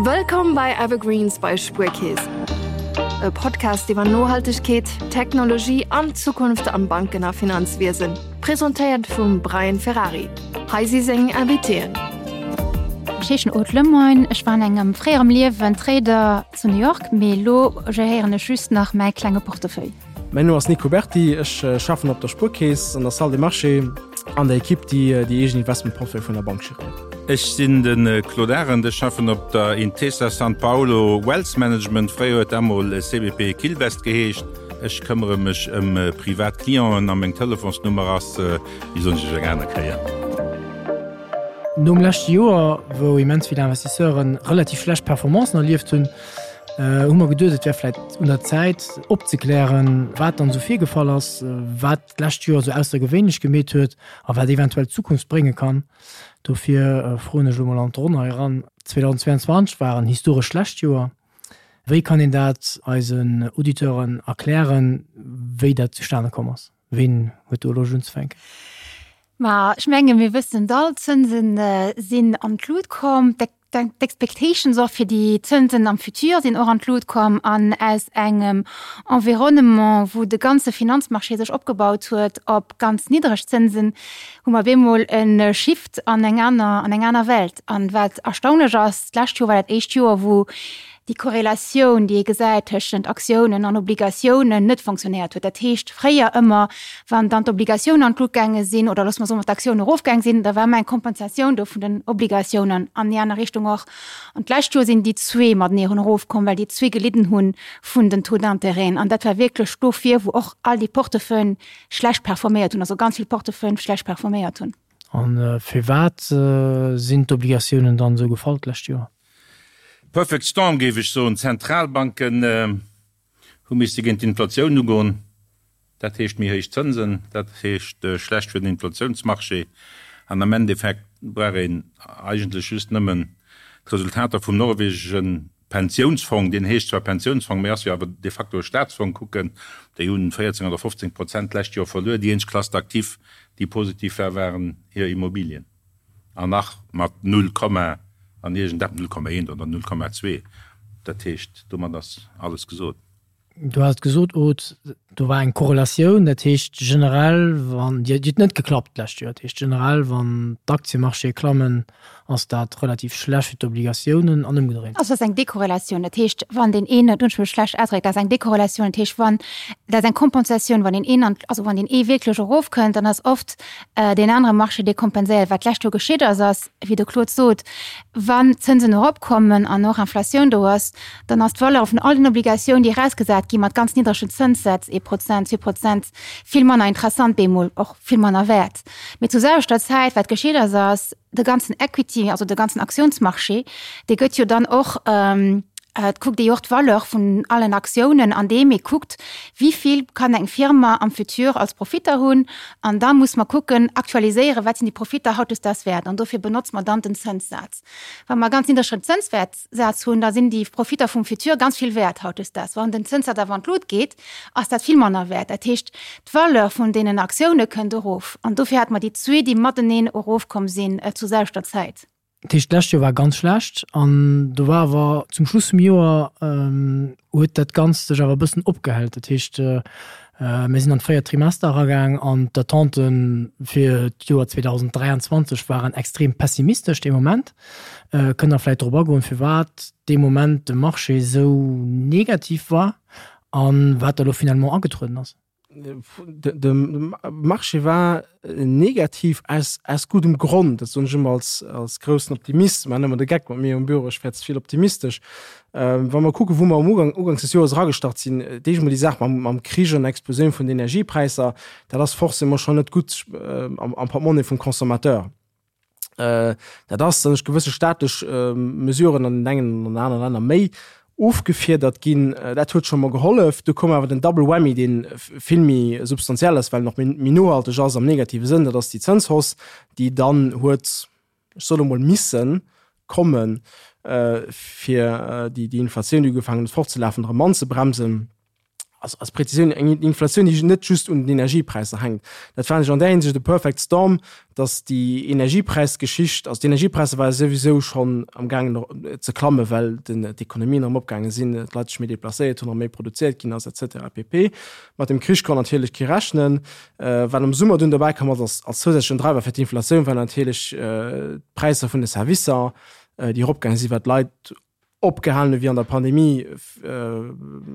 Wëllkomm bei Evergreens bei Spuerkeess. E Podcast iwwer Nohaltegkeet, Technologie an d'Zukunft am Banken a Finanzwiesen. Presentéiert vum Brian Ferrari. Hei si seng Invitéen. Ech heeschen Aude Lemoine, ech war an engem fréierem Liewen Trader zu New York, mee elo geréieren ech just nach mäi klenge Portefeuille. Mäin Numm ass Nico Berti, ech schaffen op der Spuerkeess an der Salle des Marchés an der Ekipp, déi déi eegen Investmentportefeuille vun der Bank geréiert. Ech sinn de Claude Arend, ech schaffen op der Intesa Sanpaolo Wealth Management, fréier huet dat mol CBP Quilvest geheescht. Ech këmmere mech ëm privat Clienten a meng Telefonsnummer ass, déi soen ech iech eng aner Kéier. Nom leschte Joer, wou immens vill Investisseuren relativ schlecht Performancen erlieft hunn, hu mer geduet, et wär vläit un der Zäit opzeklären, wat dann esou virgefall ass, wat d'lescht Joer esou aussergewéinlech gemeet huet a wat eventuell d'Zukunft brénge kann. Dofir froen ech elo mol an d'Ronn hei eran, 2022 war en historesch schlecht Joer. Wéi kann een dat eisen Auditeuren erklären, wéi dat zustane komm ass? Ween huet do Loscht unzefänken? Ma ech menge mir wëssen et all, d'Zënse sinn an d'Lut komm. D'Expectations och fir déi Zënsen am Futur sinn och an d'Lut komm an aus engem Environnement, wou de ganze Finanzmarché sech opgebaut huet op ganz niddreg Zënsen, hu mer op eemol e Shift an eng aner, an eng aner Welt. An wat erstaunlech ass, d'lescht Joer war dat éischt Joer, wou déi Korrelatioun, déi ee gesäit tëschent Aktiounen an Obligatiounen, net fonctionnéiert huet. Dat heescht, fréier ëmmer, wann dann d'Obligatiounen an d'Lut gaange sinn, oder loosse mer soen, wann d'Aktiounen erofgaang sinn, da war ëmmer eng Kompensatioun do vun den Obligatiounen an déi aner Richtung och. An d'lescht Joer sinn déi zwee matenee erofkomm, well déi zwee gelidden hu vun den Taux d'intérêten. An dat war wierklech dofir, wou och all déi Portefeuillen schlecht performéiert hunn, also ganz vill Portefeuillen schlecht performéiert hunn. A firwat sinn d'Obligatiounen dann esou gefall d'lescht Joer? Perfect Storm géif ech soen. D'Zentralbanken hu misste géint d'Inflatioun ugoen. Dat heescht méi héich Zënsen, dat heescht schlecht fir den Inflatiounsmarché. An am Endeffekt brauch een eigentlech just nëmmen d'Resultater vum norwegesche Pensiounsfong, deen heescht zwar Pensiounsfong, mee ass jo awer de facto e Staatsfong, kucken. Déi hunn 14 oder 15 Prozent d'lescht Joer verluer. Déi eenzeg Classe d'actifs, déi positiv war, waren hir Immobilien. An nach mat null Komma an iergendeppes, 0,1 oder 0,2. Dat heescht, domat ass alles gesot. Du has et gesot, Aude, do war eng Korrelatioun, dat heescht generell, wann, déi huet net geklappt d'lescht Joer, dat heescht generell, wann d'Aktiemarchéë klammen, ass dat relativ schlecht fir d'Obligatiounen an ëmgedréint. Also dat ass eng Dekorrelatioun, dat heescht, wann deen een, dat hunn ech mech schlecht ausgedréckt, dat ass eng Dekorrelatioun, dat heescht, wann, dat ass eng Kompensatioun, wann deen een an, also wann deen ee wierklech erofkënnt, dann ass oft deen anere Marché, dee kompenséiert. Wat d'lescht Joer geschitt ass, ass, wéi de Claude sot, wann d'Zënsen eropkommen an och Inflatioun do ass, dann ass d'Valeur vun all den Obligatiounen, déi erausgesat gi mat ganz niddregen Zënssätz, ee Prozent, 2 Prozent, vill manner interessant bemol, och vill manner wäert. Mee zur selwechter Zäit, wat geschitt ass, ass, de ganzen Equity, also de ganzen Aktiounsmarché, dee gëtt jo dann och, et kuckt ee jo och d'Valeur vun allen Aktiounen, andeem ee kuckt, wéi vill kann eng Firma am Futur als Profitter hunn. An da muss mer kucken, aktualiséieren, wat sinn déi Profitter hautdesdaags wäert. An dofir benotze mer dann den Zënssaz. Wa mer e ganz niddregen Zënswäertsaz hunn, da sinn déi Profitter vum Futur ganz vill wäert hautdesdaags. Wann den Zënssaz awer an d'Lut geet, ass dat vill manner wäert. Dat heescht, d'Valeur vun deenen Aktioune kënnt erof. An dofir hate mer déi zwee, déi mateneen erofkomm sinn zur selwechter Zäit. Dat heescht, d'lescht Joer war ganz schlecht an do war awer zum Schluss vum Joer huet dat Ganzt sech awer e bëssen opgehellt. Dat heescht, mir sinn an d'véiert Trimester eragaang an d'Attente fir d'Joer 2023 waren extrem pessimistesch dee Moment. Kënnt Der vläicht drop agoen, firwat dee Moment de Marché esou negativ war a wat da lo finalement agetrueden ass? De Marché war negativ aus, aus guddem Grond. Dat soen ech ëmmer als, als groussen Optimist. Maachen ëmmer de Geck mat mir um Büro, ech wär ze vill optimistesch. Wa mer kucken, wou mer am Ugang, uganks des Joers eragestart sinn, d'éischt emol déi Saach mam, mam Krich an der Explosioun vun den Energiepräisser, dat ass forcément schonn net gutt am, am Portemonnaie vum Consommateur. Dat ass, datt ech gewësse staatlech Mesuren an den engen an anere Länner méi ofgefiedert ginn. Dat huet scho mol gehollef. Du koum awer den Double Whammy, dee vill méi substantiell ass, well en och méi nohalteg ass am negative Sënn, dat ass déi Zënshausse, déi dann huet, ech soen emol, misse kommen, fir déi Inflatioun, déi ugefaangen huet fortzelafen, erëm anzebremsen. Also als Präzisioun, eng Inflatioun, déi net just un den Energiepräisser hänkt. Dat fannen ech an där Hinsicht e perfect storm, datt déi Energiepräisgeschicht, also d'Energiepräisser ware souwisou schonn am gaangen ze klammen, well d'Ekonomien erëm opgaange sinn, d'Leit sech méi deplacéiert hunn, erëm méi produzéiert ginn ass et cetera pp. Mat dem Krich konnt natierlech kee rechnen. Wat am Summer dunn dobäi komm ass als zousätzlechen Driver fir d'Inflatioun, war natierlech d'Präisser vun de Servicer, déi eropgaange sinn, well d'Leit opgehalen hu wéi an der Pandemie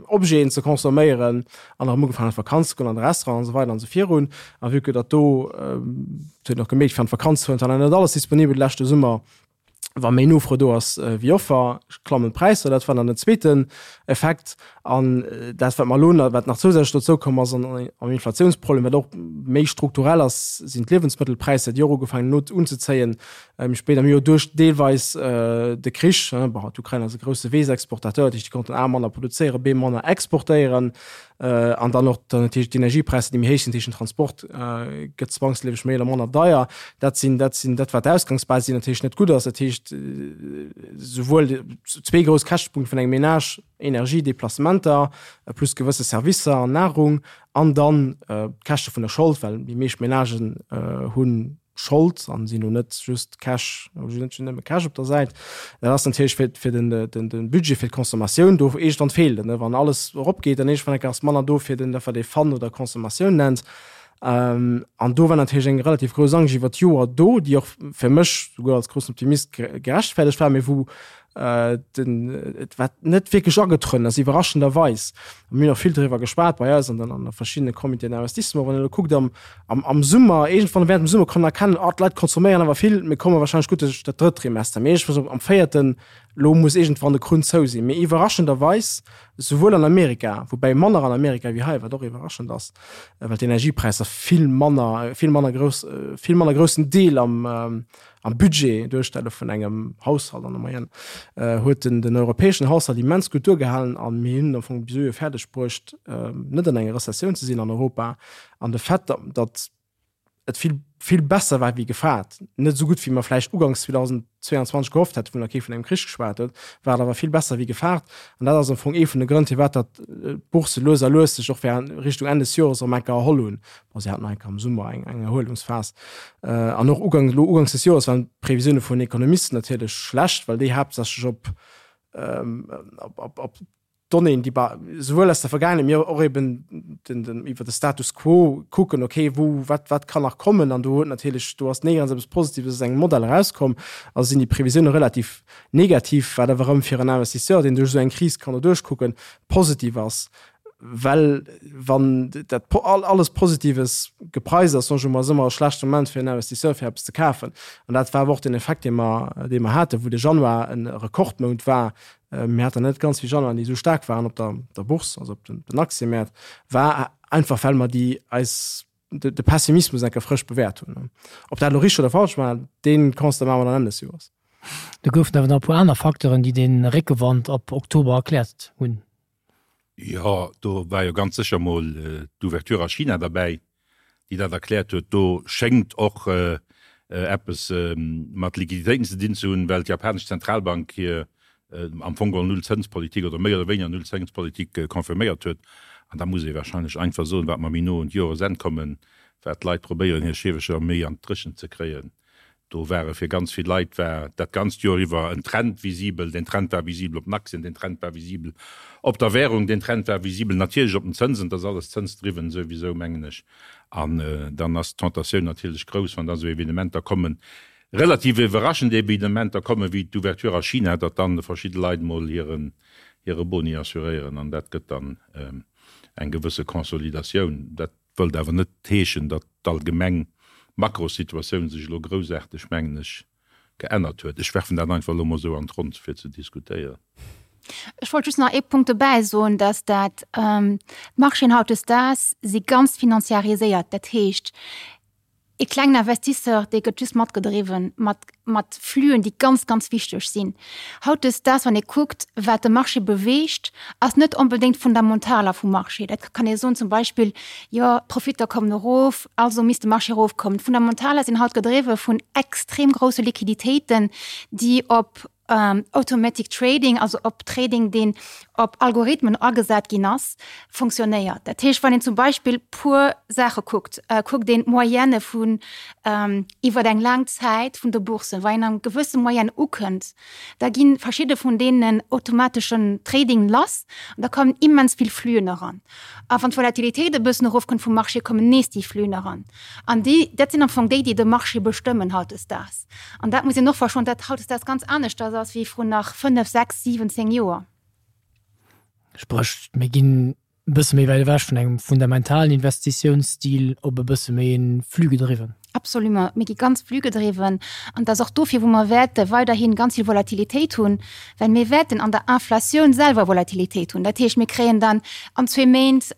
Objeten ze consomméieren an erëm ugefaangen an d'Vakanz ze goen, an de Restaurant an esou weider an esou virun. A vue que datt do, et huet een och gemierkt, fir an d'Vakanz ze fueren, et war nach net alles disponibel de leschte Summer, wa méi Nofro do ass wéi Offer, klammen d'Präisser. Dat war dann den zweeten Effekt. An dat, wat mer elo nach, wat nach zousätzlech dozou komm ass an am Inflatiounsproblem, wat och méi strukturell ass, sinn d'Liewensmëttelpräisser, déi och ugefaangen hunn unzezéien, méi spéit am Joer duerch deelweis de Krich. Bon, d'Ukrain ass e grousse Weessexportateur, dat heescht, déi konnten A manner produzéieren, B manner exportéieren. An dann och dann natierlech d'Energiepräisser, déi méi héich sinn, dat heescht den Transport gëtt zwangsleefeg méi oder manner deier. Dat sinn, dat sinn dat wat d'Ausgangsbasis, déi natierlech net gutt ass. Dat heescht souwuel zwee grouss Käschtepunkte vun engem Menage, Energie, Deplacementer plus gewësse Servicer an Nahrung an dann d'Käschte vun der Schold, well déi meescht Menagen hunn Schold an sinn elo net just Cash, hunn net nëmme Cash op der Säit. Dat ass natierlech fir, fir den, den, den Budget fir d'Consommatioun do iergendwann feelt en, wann alles eropgeet, dann iergendwann eng Kéier ass manner do fir den, dat wat ee Fun oder Consommatioun nennt. An do war natierlech eng relativ grouss Angscht iwwer d'Joer do, déi och fir mech souguer als groussen Optimist gerechtfertegt war, mee wou den, et wat net wierklech agetrueden ass, iwwerraschenderweis. Mir hunn och vill driwwer geschwat bei eis an den, an de verschiddene Comitéen d'investissement. Wann een elo kuckt am, am, am Summer, iergendwann während dem Summer konnt een erkennen, oh, d'Leit consomméieren awer vill, mir komme wahrscheinlech gutt duerch dat drëtt Trimester. Mee iergendwann am véierten, elo muss iergendwann de Krunn zou sinn. Mee iwwerraschenderweis, souwuel an Amerika, woubäi manner an Amerika wéi hei, wat och iwwerraschend ass, well d'Energiepräisser vill manner, vill manner grouss, vill manner groussen Deel am, am Budget duerstelle vun engem Haushalt an der Moyenne, huet den, den europäeschen Haushalt immens gutt duergehalen a mir hunn am Fong bis elo fäerdeg bruecht, net an enger Rezessioun ze sinn an Europa. An de Fait, datt et vill, vill besser war wéi gefaart, net esou gutt wéi mer vläicht uganks 2022 gehofft hätten, wou nach kee vun engem Krich geschwat huet, war et awer vill besser wéi gefaart. An dat ass am Fong ee vun de Grënn, firwat datt d'Bourse lues a lues sech och während Richtung Enn des Jores erëm enker erholl hunn. Bon, si haten nach eng Kéier am Summer eng, eng Erhuelungsphas. An och ugangs, elo ugangs des Joers waren d'Previsioune vun Ekonomisten natierlech schlecht, well déi haaptsächlech op, op, op, op Donnéeën, déi ba souwuel aus der Vergaangenheet, mee och eben den, den, iwwer de Status quo kucken, okay, wou, wat, wat kann nach kommen? An do huet natierlech, do ass néierens eppes Positives aus engem Modell erauskomm. Also sinn déi Previsioune relativ negativ, wat awer erëm fir en Investisseur, deen duerch esou eng Kris kann doduerch kucken, positiv ass. Well wann dat alles Positives gepreist ass, soen ech emol, ass ëmmer e schlechte Moment fir en Investisseur fir eppes ze kafen. An dat war awer och den Effekt, dee mer, dee mer haten, wou de Januar e Rekordmount war. Mir haten net ganz vill Januaren, déi esou staark waren op der, der Bourse, also op den, den Aktiëmäert, war einfach well mer déi eis de, de Pessimismus enke frësch bewäert hunn. Ob dat elo richteg oder falsch war, dee Constat maache mer dann Enn des Joers. Do goufen awer nach e puer aner Facteuren, déi dee Réckewand ab Oktober erkläert hunn. Jo, do war jo ganz sécher mol d'Ouverture a China derbäi, déi dat erkläert huet. Do schéngt och eppes mat Liquiditéiten ze dinn ze hunn, well d'japanesch Zentralbank hir am Fong geholl Nullzënspolitik oder méi oder wéineger Nullzënspolitik confirméiert huet. An da muss ee warscheinlech einfach soen, wat mer méi no un d'Joresenn kommen, wat d'Leit probéieren hir Schiewecher méi an d'Dréchent ze kréien, Do ware fir ganz vill Leit war dat ganzt Joer iwwer en Trend visibel. Deen Trend war visibel op den Aktien, deen Trend war visibel op der Währung, deen Trend war visibel natierlech op den Zënsen. Dat ass alles zënsdriwwen souwisou, mengen ech. An dann ass d'Tentatioun natierlech grouss, wann da sou Evenementer kommen, relativ iwwerraschend Evenementer kommen, wéi d'Ouverture a China, datt dann verschidde Leit mol hiren, hire Boni assuréieren. An dat gëtt dann eng gewësse Consolidatioun. Dat Wëllt awer net heeschen, datt d'allgemeng Makrosituatioun sech elo groussaarteg, mengen ech, geännert huet. Ech werfen dat einfach elo mol esou an d'Ronn, fir ze diskutéieren. Ech wollt just nach ee Punkt dobäi soen, datt dat d'Marchéen hautdesdaags si ganz financiariséiert. Dat heescht, ee klengen Investisseur, dee gëtt just matgedriwwen mat, mat Flüen, déi ganz, ganz wichteg sinn. Hautdesdaags, wann ee kuckt, wat de Marché beweegt, ass net onbedéngt d'Fundamentaler vum Marché. Dat kann ee soen, zum Beispill, jo, d'Profitter kommen erof, also misst de Marché erofkommen. D'Fundamentaler sinn haut gedriwwe vun extrem grousse Liquiditéiten, déi op Automatic Trading, also op Trading, deen. op Algorithmen agesat ginn ass, fonctionnéiert. Dat heescht, wann een zum Beispill puer Saache kuckt, kuckt een d'Moyenne vun iwwer eng laang Zäit vun de Boursen, wa een eng gewësse Moyenne ukënnt, da gi verschidde vun deenen automateschen Trading lass an da kommen immens vill Fluen eran. A wann d'Volatilitéit e bëssen erofkënnt vum Marché, kommen nees déi Fluen eran. An déi, dat sinn am Fong déi, déi de Marché bestëmmen hautdesdaags. An dat muss een och verstoen, dat hautdesdaags ganz aneschters ass wéi vrun nach 5, 6, 7, 10 Joer. Spréch, mir ginn e bësse méi wäit ewech vun engem fundamentalen Investitiounsstil op e bësse méi e flux-gedriwwen. Absolument, mir gi ganz flux-gedriwwen. An et ass och dofir, wou mer wäerte weiderhi ganz vill Volatilitéit hunn, well mir wäerten an der Inflatioun selwer Volatilitéit hunn. Dat heescht, mir kréien dann an zwee Méint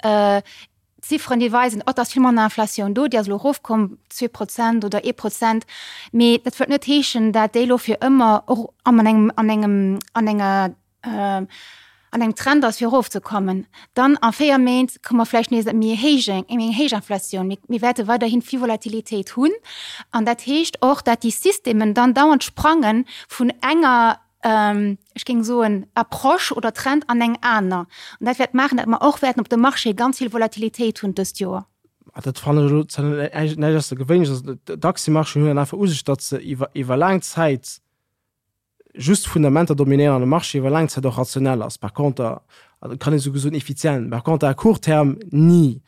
Zifferen, déi weisen, oh, et ass vill manner Inflatioun do, déi ass elo erofkomm, 2 Prozent oder ee Prozent. Mee dat wëllt net heeschen, dat déi elo fir ëmmer och an engem, an engem, an enger, an engem Trend ass, fir erofzekommen. Dann a véier Méint komme mer vläicht nees ëm méi héich, eng méi héich Inflatioun. Mir, mir wäerte weiderhi vill Volatilitéit hunn. An dat heescht och, dat déi Systemen dann dauernd sprange vun enger, ech géing soen, Approche oder Trend an eng aner. An dat wäert maachen, datt mer och wäerten op dem Marché ganz vill Volatilitéit hunn dëst Joer. Dat fannen ech elo zwar net näischt aussergewéinleches. Also d'Aktiëmarchéen hunn einfach u sech, datt se iwwer iwwer laang Zäit just Fundamenter dominéieren an de Marché iwwer laang Zäit och rationell ass. Par conter, also kann ee souguer soen effizient, par conter à court terme ni.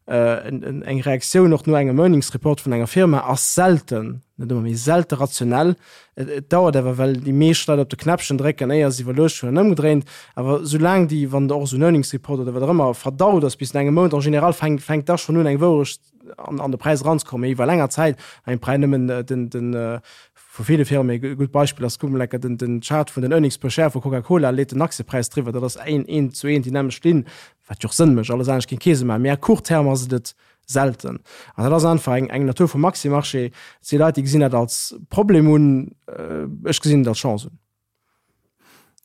Eng Reaktioun och no engem Earnings Report vun enger Firma ass selten, net ëmmer, mee selte rationell. Et dauert awer, well déi meescht Leit op de Knäppchen drécken, éier se iwwerluecht hunn an ëmgedréint. Awer soulaang déi, wann och esou en Earnings Report oder wat och ëmmer verdaut ass bis no engem Mount, en général fänkt fänkt da schonn un eng Wourecht an an de Präis eranzekommen. Mee iwwer länger Zäit, eng Präi nëmmen den den vu ville Firmen, e gutt Beispill ass, kuck mol enker den den Chart vun den Earnings per Share vu Coca-Cola, leet den Aktiepräis driwwer, dat ass een eent zu eent déi nämmlecht Linn. Wat jo och Sënn mécht, alles anescht géing kee Sënn maachen. Mee à court terme ass et et selten. An dat ass einfach eng, eng Natur vum Aktiëmarché. Et si Leit, déi gesinn dat als Problem un, ech gesinn et als Chance un.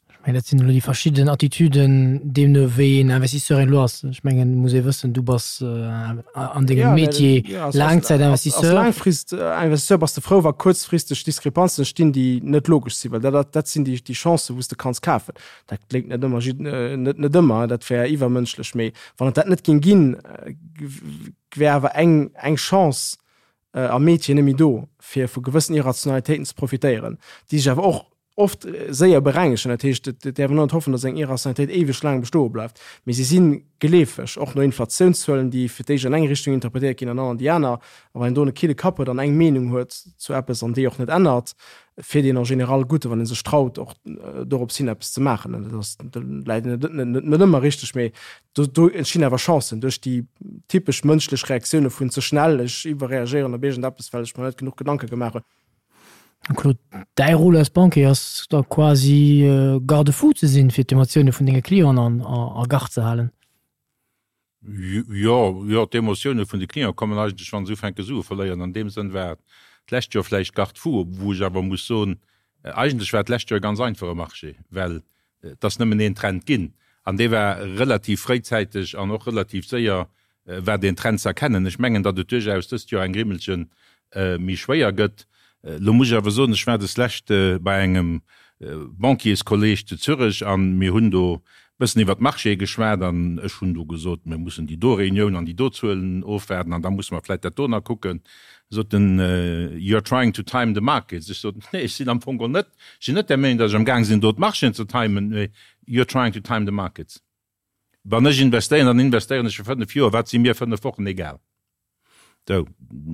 Ech mengen, dat sinn elo déi verschidden Attitüden, deemno wéi een Investisseur een elo ass. Ech mengen, et muss ee wëssen, du bass an dengem Métier Laangzäitinvestisseur. Als Laangfristinvestisseur bass de frou, wa kuerzfristeg Diskrepanzen entstinn, déi net logesch sinn, well dat, dat sinn déi Chancen, wou s de kanns kafen. Dat kléngt net ëmmer, net, net ëmmer, dat wär iwwermënschlech, mee wann et dat net géing ginn, wär awer eng, eng Chance am Métier net méi do, fir vu gewëssen Irrationalitéiten ze profitéieren, déi sech awer och oft séier berengegen. Dat heescht, et däerf een och net hoffen, datt eng Irrationalitéit éiweg laang bestoe bleift, mee si si geleefeg, och no Inflatiounszuelen, déi fir d'éischt an eng Richtung interpretéiert ginn an dann an déi aner. A wann een do e kille Kapp huet an eng Meenung huet zu eppes an déi och net ännert, fiert een en général gutt, wann ee sech traut och dorops hin eppes ze maachen. An dat ass, do läit een net net ëmmer richteg, mee do do entstinn awer Chancen duerch déi typesch mënschlech Reaktioune vun ze schnell, ech iwwerreagéieren op iergendeppes, well ech mer net genuch Gedanke gemaach hunn. Claude, däi Rôle als Banquier ass da quasi Garde-fou ze sinn, fir d'Emotioune vun denge Clienten a Garde ze halen. Jo, jo, d'Emotioune vun de Clienten kommen eigentlech, wa se ufänke Sue verléieren. An deem Sënn war d'lescht Joer vläicht Garde-fou, wou ech awer muss soen, eigentlech war d'lescht Joer e ganz einfache Marché, well et ass nëmmen een Trend ginn an dee war relativ fréizäiteg an och relativ séier war deen Trend ze erkennen. Ech mengen, datt et duerchaus dëst Joer eng Grimmelche méi schwéier gëtt. Elo muss ech awer soen, ech war deslescht bei engem Banquierskolleg zu Zürech an mir hunn do e bëssen iwwert d'Marchéë geschwat an ech hunn do gesot, mir mussen déi do Reunioun an déi do Zuelen ofwaarden an da musse mer vläicht dat do nach kucken. Sot en, You are trying to time the markets. Ech sot, Nee, ech sinn am Fong geholl net, ech sinn net der Meenung, datt ech am Gaang sinn do d'Marchéen ze timen, mee you are trying to time the markets. Wann ech investéieren, dann investéieren ech fir 5 Joer, wat si mir 5 Wochen egal. Sou,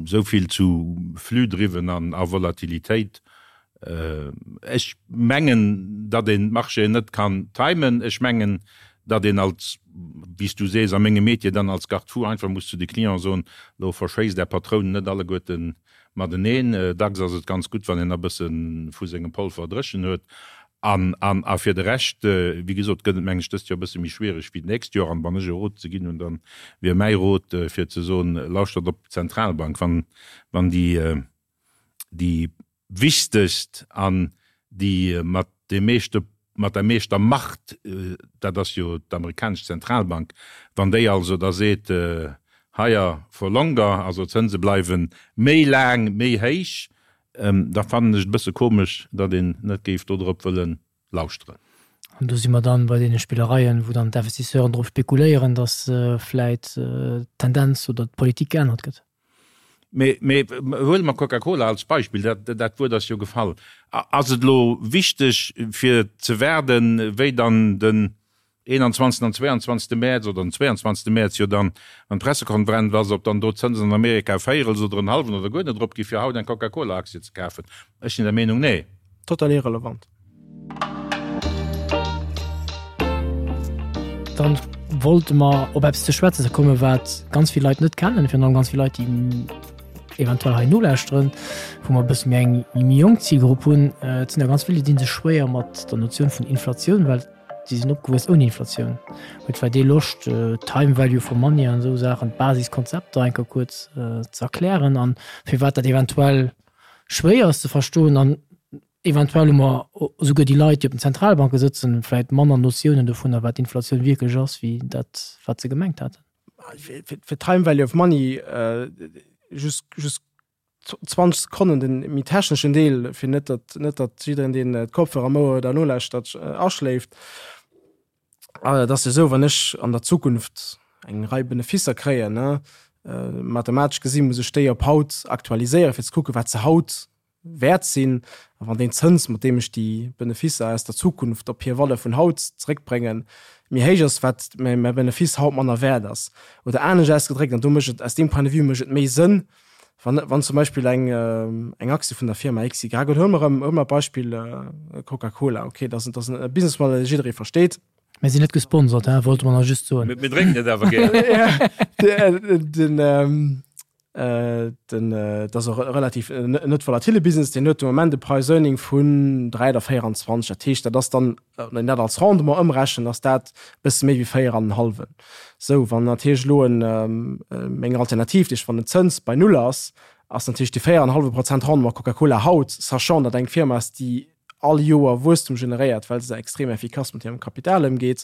esou vill zu Flux-driwwen an a Volatilitéit. Ech mengen, datt een d'Marchéen net kann timen. Ech mengen, datt een als, wéi s du sees, a mengem Métier dann als Garde-fou einfach muss zu de Clienten soen, Lo verschéisst Är Patrounen net alleguerten mateneen. Dacks ass et ganz gutt, wann een e bësse vu sengem Polver dréchen huet. An, an, a fir de Rescht, wéi gesot, gëtt et, mengen ech, dëst Joer e bësse méi schwiereg wéi d'nächst Joer. An wann ech e Rot ze ginn hunn, da wier mäi Rot, fir ze soen, Lauschtert op d'Zentralbank, wann, wann déi, déi wichtegst an déi mat deem meeschte, mat der meeschter Macht, dat ass jo d'amerikanesch Zentralbank, wann déi also da seet, higher for longer, also d'Zënse bleiwe méi laang méi héich, da fannen ech et e bësse komesch, datt een net géif dodrop wëlle lauschteren. An do si mer dann bei deene Spillereien, wou dann d'Investisseuren drop spekuléieren, datt vläit d'Tendenz oder d'Politik geännert gëtt. Mee, mee huele mer Coca-Cola als Beispill, dat, dat Wuert ass jo gefall. Ass et elo wichteg fir ze waarden, wéi dann den 21. an 22. Mäerz oder den 22. Mäerz jo dann, wann d'Pressekonferenz ass, ob dann do d'Zënsen an Amerika e Véierels oder en hallwen oder guer net erop gi fir haut eng Coca-Cola-Aktie ze kafen? Ech sinn der Meenung, nee. Total irrelevant. Dann wollte mer op eppes ze schwätzen ze kommen, wat ganz vill Leit net kennen, virun allem ganz vill Leit, déi eventuell hei nolauschteren, wou mer e bësse méi eng méi jonk Zilgrupp hunn. Et sinn der ganz vill, déi dinn sech schwéier mat der Notioun vun Inflatioun, well si sinn opgewuess ouni Inflatioun. Huet vläicht ee Loscht, Time Value for Money an esou Saachen, d'Basiskonzepter eng Kéier kuerz ze erklären an firwat dat eventuell schwéier ass ze verstoen an Eventuell hu mer esouguer déi Leit, déi op den Zentralbanke sëtzen, vläicht manner Notiounen dovunner, wat Inflatioun wierklech ass, wéi dat, wat se gemengt haten. Fir Time Value of Money just just 20 Sekonnen den méi techneschen Deel, fir net datt net datt jiddereen, deen d'Kopfhörer am Ouer huet a nolauschtert, aschléift. Et ass jo esou, wann ech an der Zukunft eng Rei Benefisser kréien, ne, mathematesch gesi muss ech déi op haut aktualiséieren, fir ze kucken, wat se haut wäert sinn, a wann deen Zëns, mat deem ech déi Benefisser aus der Zukunft op hir Valeur vun haut zeréckbréngen, méi héich ass, wat mäi Benefiss haut manner wäert ass. Oder anescht ausgedréckt, an do mécht et, aus deem Point de vue mécht et méi Sënn, wann, wann zum Beispill eng, eng Aktie vun der Firma XY, oder huele mer erëm, huele mer d'Beispill Coca-Cola, okay, dat ass, dat ass e Businessmodell, dee jidderee versteet. Mir sinn net gesponsert, hein, wollte mer nach just soen. Mir drénken et awer gär. Den, Den, dat ass och e relativ net volatile Business, deen huet de Moment e Price Earning vun 3 oder 24. Dat heescht, dat ass dann, wann een dat als Rendement ëmrechent, ass dat e bësse méi wéi 4 an en hallwen. Sou, wann natierlech elo en, meng Alternativ, dat heescht wann den Zëns bei null ass, ass natierlech déi 4 an en hallwe Prozent Rendement Coca-Cola haut, sachant datt eng Firma ass, déi all Joer Wuesstum generéiert, well se extrem effikass mat hirem Kapital ëmgeet.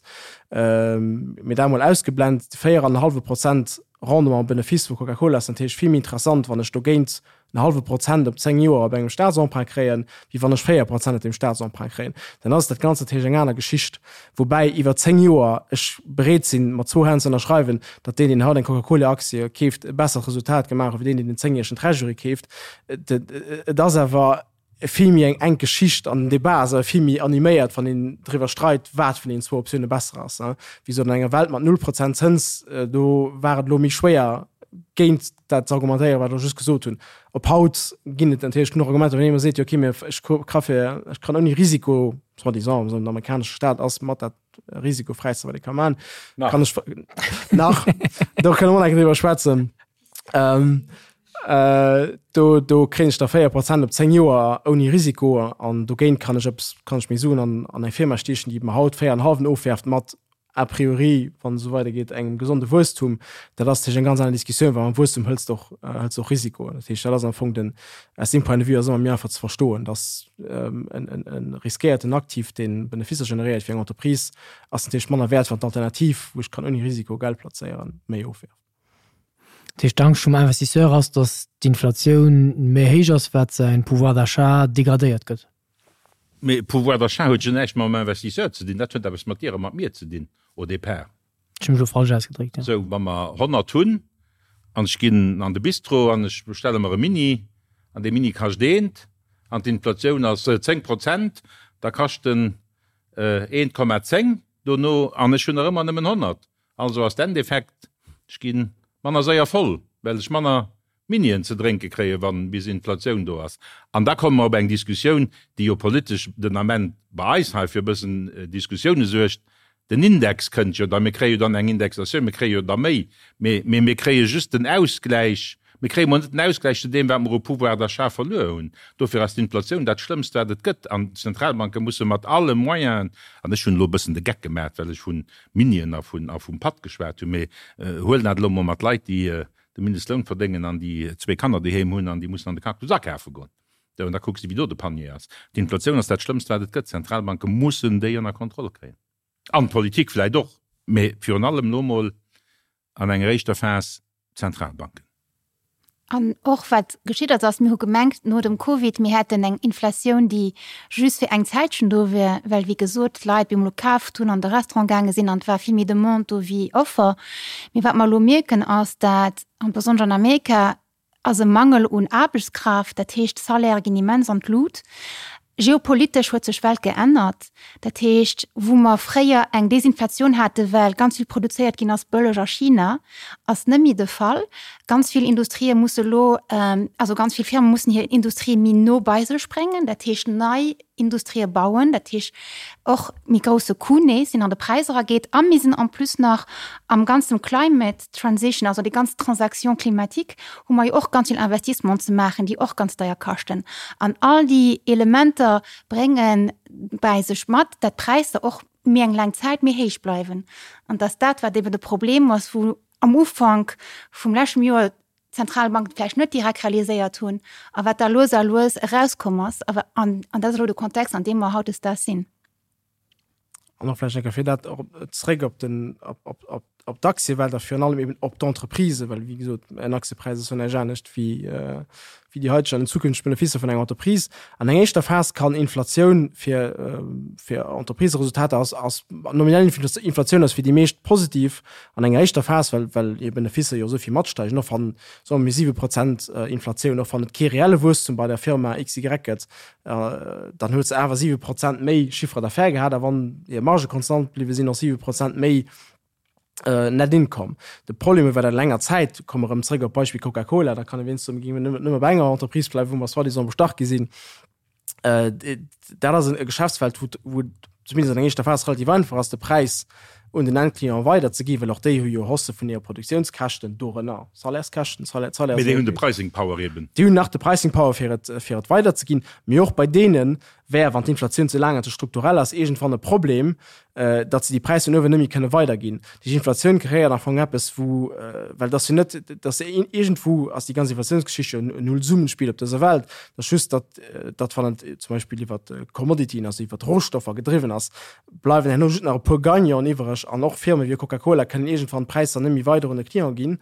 Mee dat emol ausgeblent, de 4 an en hallwe Prozent Rendement am Benefice vu Coca-Cola ass natierlech vill méi interessant, wann ech dogéint en hallwe Prozent op 10 Joer op engem Staatsemprunt kréien, wéi wann ech 4 Prozent op deem Staatsemprunt kréien. Dann ass dat Ganzt natierlech eng aner Geschicht. Woubäi iwwer 10 Joer ech bereet sinn, mat zwou Hänn ze ënnerschreiwen, datt deen, deen haut eng Coca-Cola-Aktie keeft, e bessert Resultat gemaach huet, wéi deen, deen den zéngjäregen Treasury keeft. Et ass awer vill méi eng enk Geschicht an den Debat ass awer vill méi animéiert, wann een driwwer streit, wat vun deenen zwou Optioune besser ass. Wéi gesot, an enger Welt mat null Prozent Zëns, do war et elo méi schwéier, géint dat ze argumentéieren, wat ech elo just gesot hunn. Op haut ginn et natierlech genuch Argumenter, wann een ëmmer seet, jo okay, mee ech ka fir, ech kann ouni Risiko, soi-disant, den amerikanesche Staat ass mat dat risikofräiste, wat ee ka maachen, kann ech nach, do kënne mer och nach eng Kéier driwwer schwätzen. Ähm, äh, do, do kréien ech da 4 Prozent op 10 Joer ouni Risiko an dogéint kann ech eppes, kann ech meng Suen an, an eng Firma stiechen, déi mer haut 4,5 ofwerft mat a priori, wann et esou weidergeet, engem gesonde Wuesstum. Dat ass natierlech eng ganz aner Diskussioun, well mam Wuesstum hëls de och, hëls de och Risikoen. Dat heescht, dat ass am Fong den, aus deem Point de vue ass ëmmer méi einfach ze verstoen, dass en, en, en riskéierten Aktiv, dee Benefisser generéiert fir eng Entreprise, ass natierlech manner wäert, wann d'Alternativ, wou ech kann ouni Risiko Geld plazéieren, méi ofwerft. Dat heescht, d'Angscht vum Investisseur ass, datt d'Inflatioun méi héich ass, wat säin Pouvoir d'achat degradéiert gëtt. Mee Pouvoir d'achat huet jo näischt mam Investisseur ze dinn, dat huet eppes mat dir a mat mir ze dinn au départ. Ech hu mech elo falsch ausgedréckt, jo. Sou, wa mer 100 hunn an ech ginn an de Bistro an ech bestelle mer e Mini an dee Mini kascht eent an d'Inflatioun ass 10 Prozent, da kascht en 1,10 dono an ech hunn nach ëmmer nëmmen 100. Also ass d'Endeffekt, ech gi manner séier voll, well ech manner Minien ze drénke kréien, wann bis Inflatioun do ass. An da komme mer op eng Diskussioun, déi jo politesch den Ament bei eis hei fir e bëssen Diskussioune suergt. Den Index kënnt jo da, mir kréie jo dann eng Indexatioun, mir kréie jo da méi, mee mir kréie just den Ausgläich, mir kréie mol net den Ausgläich zu deem, wat mer u Pouvoir d'achat verluer hunn. Dofir ass d'Inflatioun dat Schlëmmst, wat et gëtt. An d'Zentralbanke musse mat alle Moyenen, an ech hunn elo e bëssen de Geck gemaach, well ech vun Minien a vun a vum Patt geschwat hunn, mee huelen dat elo mol mat Leit, déi de Mindestloun verdéngen an déi zwee Kanner doheem hunn an déi mussen an de Cactus akafe goen. Sou, an da kucks de, wéi do de Panier ass. D'Inflatioun ass dat Schlëmmst, wat et gëtt. D'Zentralbanke mussen déi ënner Kontroll kréien. An d'Politik vläicht och, mee virun allem elo mol an enger éischter Phas d'Zentralbanken. An och wat geschitt ass, ass, mir hu gemengt no dem Covid, mir hätten eng Inflatioun, déi just fir eng Zäitchen do wier, well wéi gesot d'Leit bemol kaaft hunn, an de Restaurant gaange sinn an et war vill méi Demande do wéi Offer. Mee wat mer elo mierken ass, dat, an besonnesch an Amerika, ass e Mangel un Aarbechtskraaft, dat heescht d'Salairë ginn immens an d'Lut. Geopolitesch huet sech d'Welt geännert. Dat heescht, wou mer fréier eng Desinflatioun hate well ganz vill produzéiert ginn ass bëlleg a China, ass net méi de Fall. Ganz vill Industrië musse elo, also ganz vill Firme mussen hir Industrie méi no bei sech bréngen, dat heescht nei Industrië bauen, dat heescht och méi grousse Coût nees, deen an de Präis erageet. A mir sinn en plus nach am ganzen Climate Transition, also déi ganz Transaction climatique, hu mer jo och ganz vill Investissementen ze maachen, déi och ganz deier kaschten. An all déi Elementer brénge bäi sech mat, dat d'Präisser och méi eng laang Zäit méi héich bleiwen. An dass dat, wat eben de Problem ass, wou am Ufank vum leschtem Joer d'Zentralbanken vläicht net direkt realiséiert hunn a wat da lues a lues erauskomm ass. An dat ass elo de Kontext, an deem mer hautdesdaags sinn. An och vläicht eng Kéier fir dat och zréck op den, op, op, op, op d'Aktiewelt a virun allem eben op d'Entreprisen, well wéi gesot, en Aktiepräis ass jo näischt anescht wéi, wéi déi haiteg an den zukünfteg Benefisser vun enger Entreprise. An enger éischter Phas kann Inflatioun fir, fir Entrepriseresultater ass, ass nominell Inflatioun ass fir déi meescht positiv an enger éischter Phas, well, well hir Benefisser jo esou vill matsteigen, och wann, soe mir, 7 Prozent Inflatioun, och wann et kee reelle Wuesstum bei der Firma XY gëtt, dann huet se awer 7 Prozent méi Chiffre d'affaires gehat a wann hir Marge konstant bliwwe sinn, och 7 Prozent méi Net Income. De Problem iwwer eng länger Zäit, komme erëm zréck op d'Beispill Coca-Cola, da kann e wéinst soen, géinge mir nëmme bei enger Entreprise bleiwen, wou mer soi-disant bestach gi sinn. Dat ass e Geschäftsfeld, wou zumindest an enger éischter Phas relativ einfach ass, de Präis un den Endclient weider ze ginn, well och déi hu jo Hausse vun hire Produktiounskäschten, dorënner Salaires-Käschten, Salaires. Mee déi hunn de Pricing Power eben. Déi hunn nach de Pricing Power fir et, fir et weider ze ginn. Mee och bei deene wär, wann d'Inflatioun ze laang an ze strukturell ass, iergendwann e Problem, datt se déi Präisser no uewen net méi kënne weiderginn. Déi Inflatioun kreéiert am Fong eppes, wou, well et ass jo net, datt iergendwou ass déi ganz Inflatiounsgeschicht jo en Nullsummenspiel op dëser Welt. Et ass just, datt, datt wann et zum Beispill iwwer Commodityen, also iwwer Rohstoffer gedriwwen ass, bleiwen herno just nach e puer Gagnanten iwwereg an och Firme wéi Coca-Cola kënnen iergendwann d'Präisser net méi weider un de Client ginn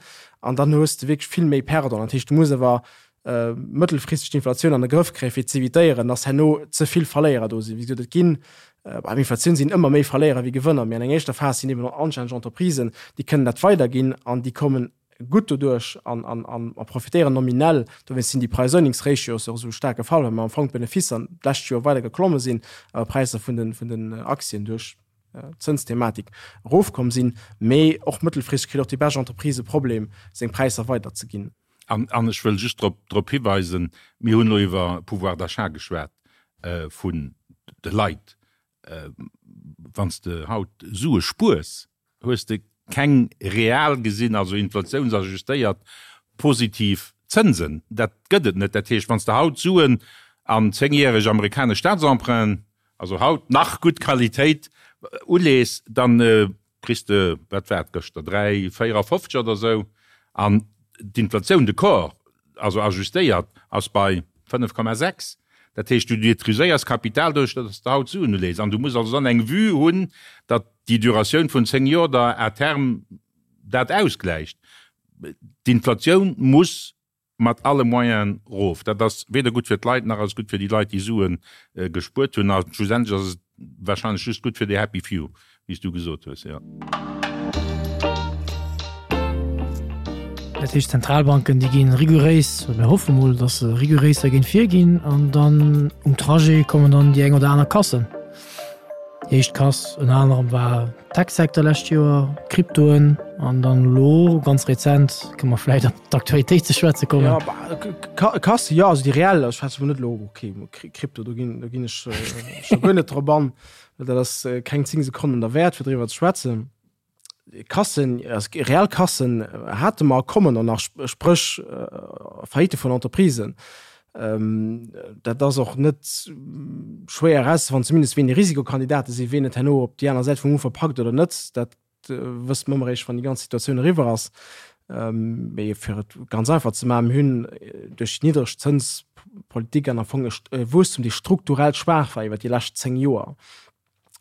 an dann hues de wierklech vill méi Perdant. Dat heescht, du muss awer mëttelfristeg d'Inflatioun an de Grëff kréien, fir z'evitéieren, dass herno ze vill Verléierer do sinn. Wéi gesot, et ginn, beim Inflatioun sinn ëmmer méi Verléierer wéi Gewënner, mee an enger éischter Phas sinn eben anstänneg Entreprisen, déi kënnen dat weiderginn an déi kommen gutt doduerch an, an, an a profitéieren nominell. Dowéinst sinn déi Price-Earnings-Ratios och esou staark gefall, well mer am Fong d'Benefisser d'lescht Joer weider geklomme sinn, awer d'Präisser vun den, vun den Aktien duerch d'Zënsthematik erofkomm sinn. Mee och mëttelfristeg kritt och déi bescht Entreprise e Problem, seng Präisser weiderzeginn. An, an ech wëll just drop, drop hiweisen, mir hunn elo iwwer Pouvoir d'achat geschwat vun de Leit. Wann s de haut Sue spuers, hues de keng real gesinn, also inflatiounsajustéiert, positiv Zënsen. Dat gëtt et net. Dat heescht, wann s de haut Suen an zéngjäreg amerikanesch Staatsemprunten, also haut nach gutt Qualitéit, ulees, da kriss de, wat war et gëschter, 3,54 oder esou. An d'Inflatioun de corps, also ajustéiert, ass bei 5,6. Dat heescht, du détruiséiers Kapital doduerch, datt s de haut Suen ulees. An du muss also dann eng Vue hunn, datt déi Duratioun vun 10 Joer der à terme dat ausgläicht. D'Inflatioun muss mat alle Moyenen erof. Dat ass weder gutt fir d'Leit, nach ass et gutt fir déi Leit, déi Sue gespuert hunn. A schlussendlech ass et wahrscheinlech just gutt fir déi happy few, wéi s du gesot hues, jo. Dat heescht, d'Zentralbanken, déi gi riguréis, oder mir hoffe mol, datt se riguréis dergéint virginn, an dann um Trajet kommen dann déi eng oder aner Kassen. Déi éischt Kass ënner anerem war Tech-Secteur lescht Joer, Kryptoen an dann elo ganz rezent, kënne mer vläicht op d'Aktualitéit ze schwätze kommen. Ja, bah, Kasse, jo, also déi reell, ech schwätze mol net elo, okay, Krypto, do ginn, do ginn ech scho guer net drop an, well dat ass keng 10 Sekonnen derwäert, fir driwwer ze schwätzen. Kassen, reell Kassen hate mer a kommen och nach, spréch Faillite vun Entreprisen. Dat ass och net schwéier erauszefannen, zumindest wien déi Risikokandidate sinn, wien et herno op déi aner Säit vum Ufer packt oder net, dat wësse mer ëmmer eréischt, wann déi ganz Situatioun eriwwer ass. Mee fir et ganz einfach ze maachen, mir hunn duerch déi niddreg Zënspolitik an am Fong e Wuesstum, dee strukturell schwaach war iwwer déi lescht 10 Joer.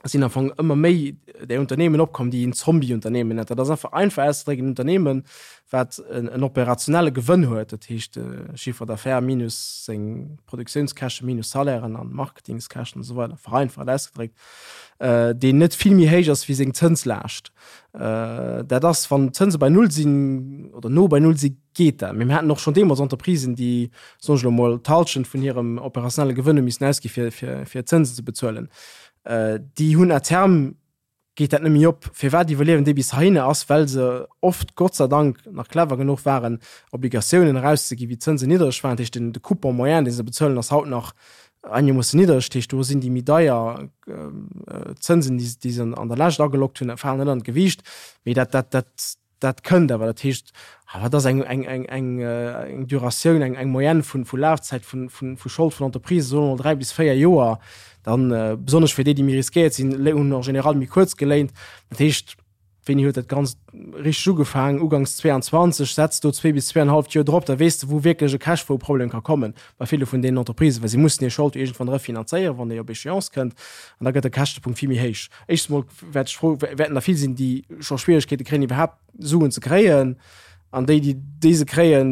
Sinn am Fong ëmmer méi där Unternehmen opkomm, déi een Zombie-Unternehmen nennt. Dat ass einfach einfach auszedrécken en Unternehmen, wat en operationelle Gewënn huet, dat heescht Chiffre d'affaires minus seng Produktiounskäschte minus Salairen an Marketingskäschten an esou weider, vereinfacht ausgedréckt, deen net vill méi héich ass wéi seng Zënslaascht. Dat ass, wann d'Zënse bei Null sinn oder no bei Null sinn, geet dat. Mee mir haten och schonn deemools Entreprisen, déi, soen ech elo mol, d'Hallschent vun hirem operationelle Gewënn hu missen ausgi fir, fir, fir Zënsen ze bezuelen. Déi hunn à terme geet dat net méi op. Firwat iwwerliewen déi bis heihinne ass, well se oft, Gott sei Dank, nach clever genuch waren, Obligatiounen erauszeginn, wéi d'Zënsen niddereg waren. Dat heescht, den, de Coupon moyen, dee se bezuelen, ass haut nach einegermoossen niddereg. Dat heescht, do sinn déi méi deier Zënsen, déi, déi se an der Lescht agelockt hunn, falen net an d'Gewiicht. Mee dat, dat, dat, Dat kënnt awer, dat heescht, wat ass eng, eng, eng, eng, eng Duratioun, eng, eng Moyenne vun, vu Lafzäit vun, vun, vu Schold vun Entreprisen, soe mer mol 3 bis 4 Joer, dann, besonnesch fir déi, déi méi riskéiert sinn, hunn en général méi kuerz geléint. Dat heescht, wéini huet dat Ganzt richteg ugefaangen? Uganks 22, setz do zwee bis zweeanenhalleft Joer drop, da weess de, wou wierklech e Cashflow-Problem ka kommen bei ville vun deenen Entreprisen, well si mussen hir Schold jo iergendwann refinanzéieren, wann déi op Échéance kënnt, an da gëtt de Käschtepunkt vill méi héich. Éischtens mol wäert ech fro, wäerten der vill sinn, déi scho Schwieregkeete kréien, iwwerhaapt Suen ze kréien. An déi, déi déi se kréien,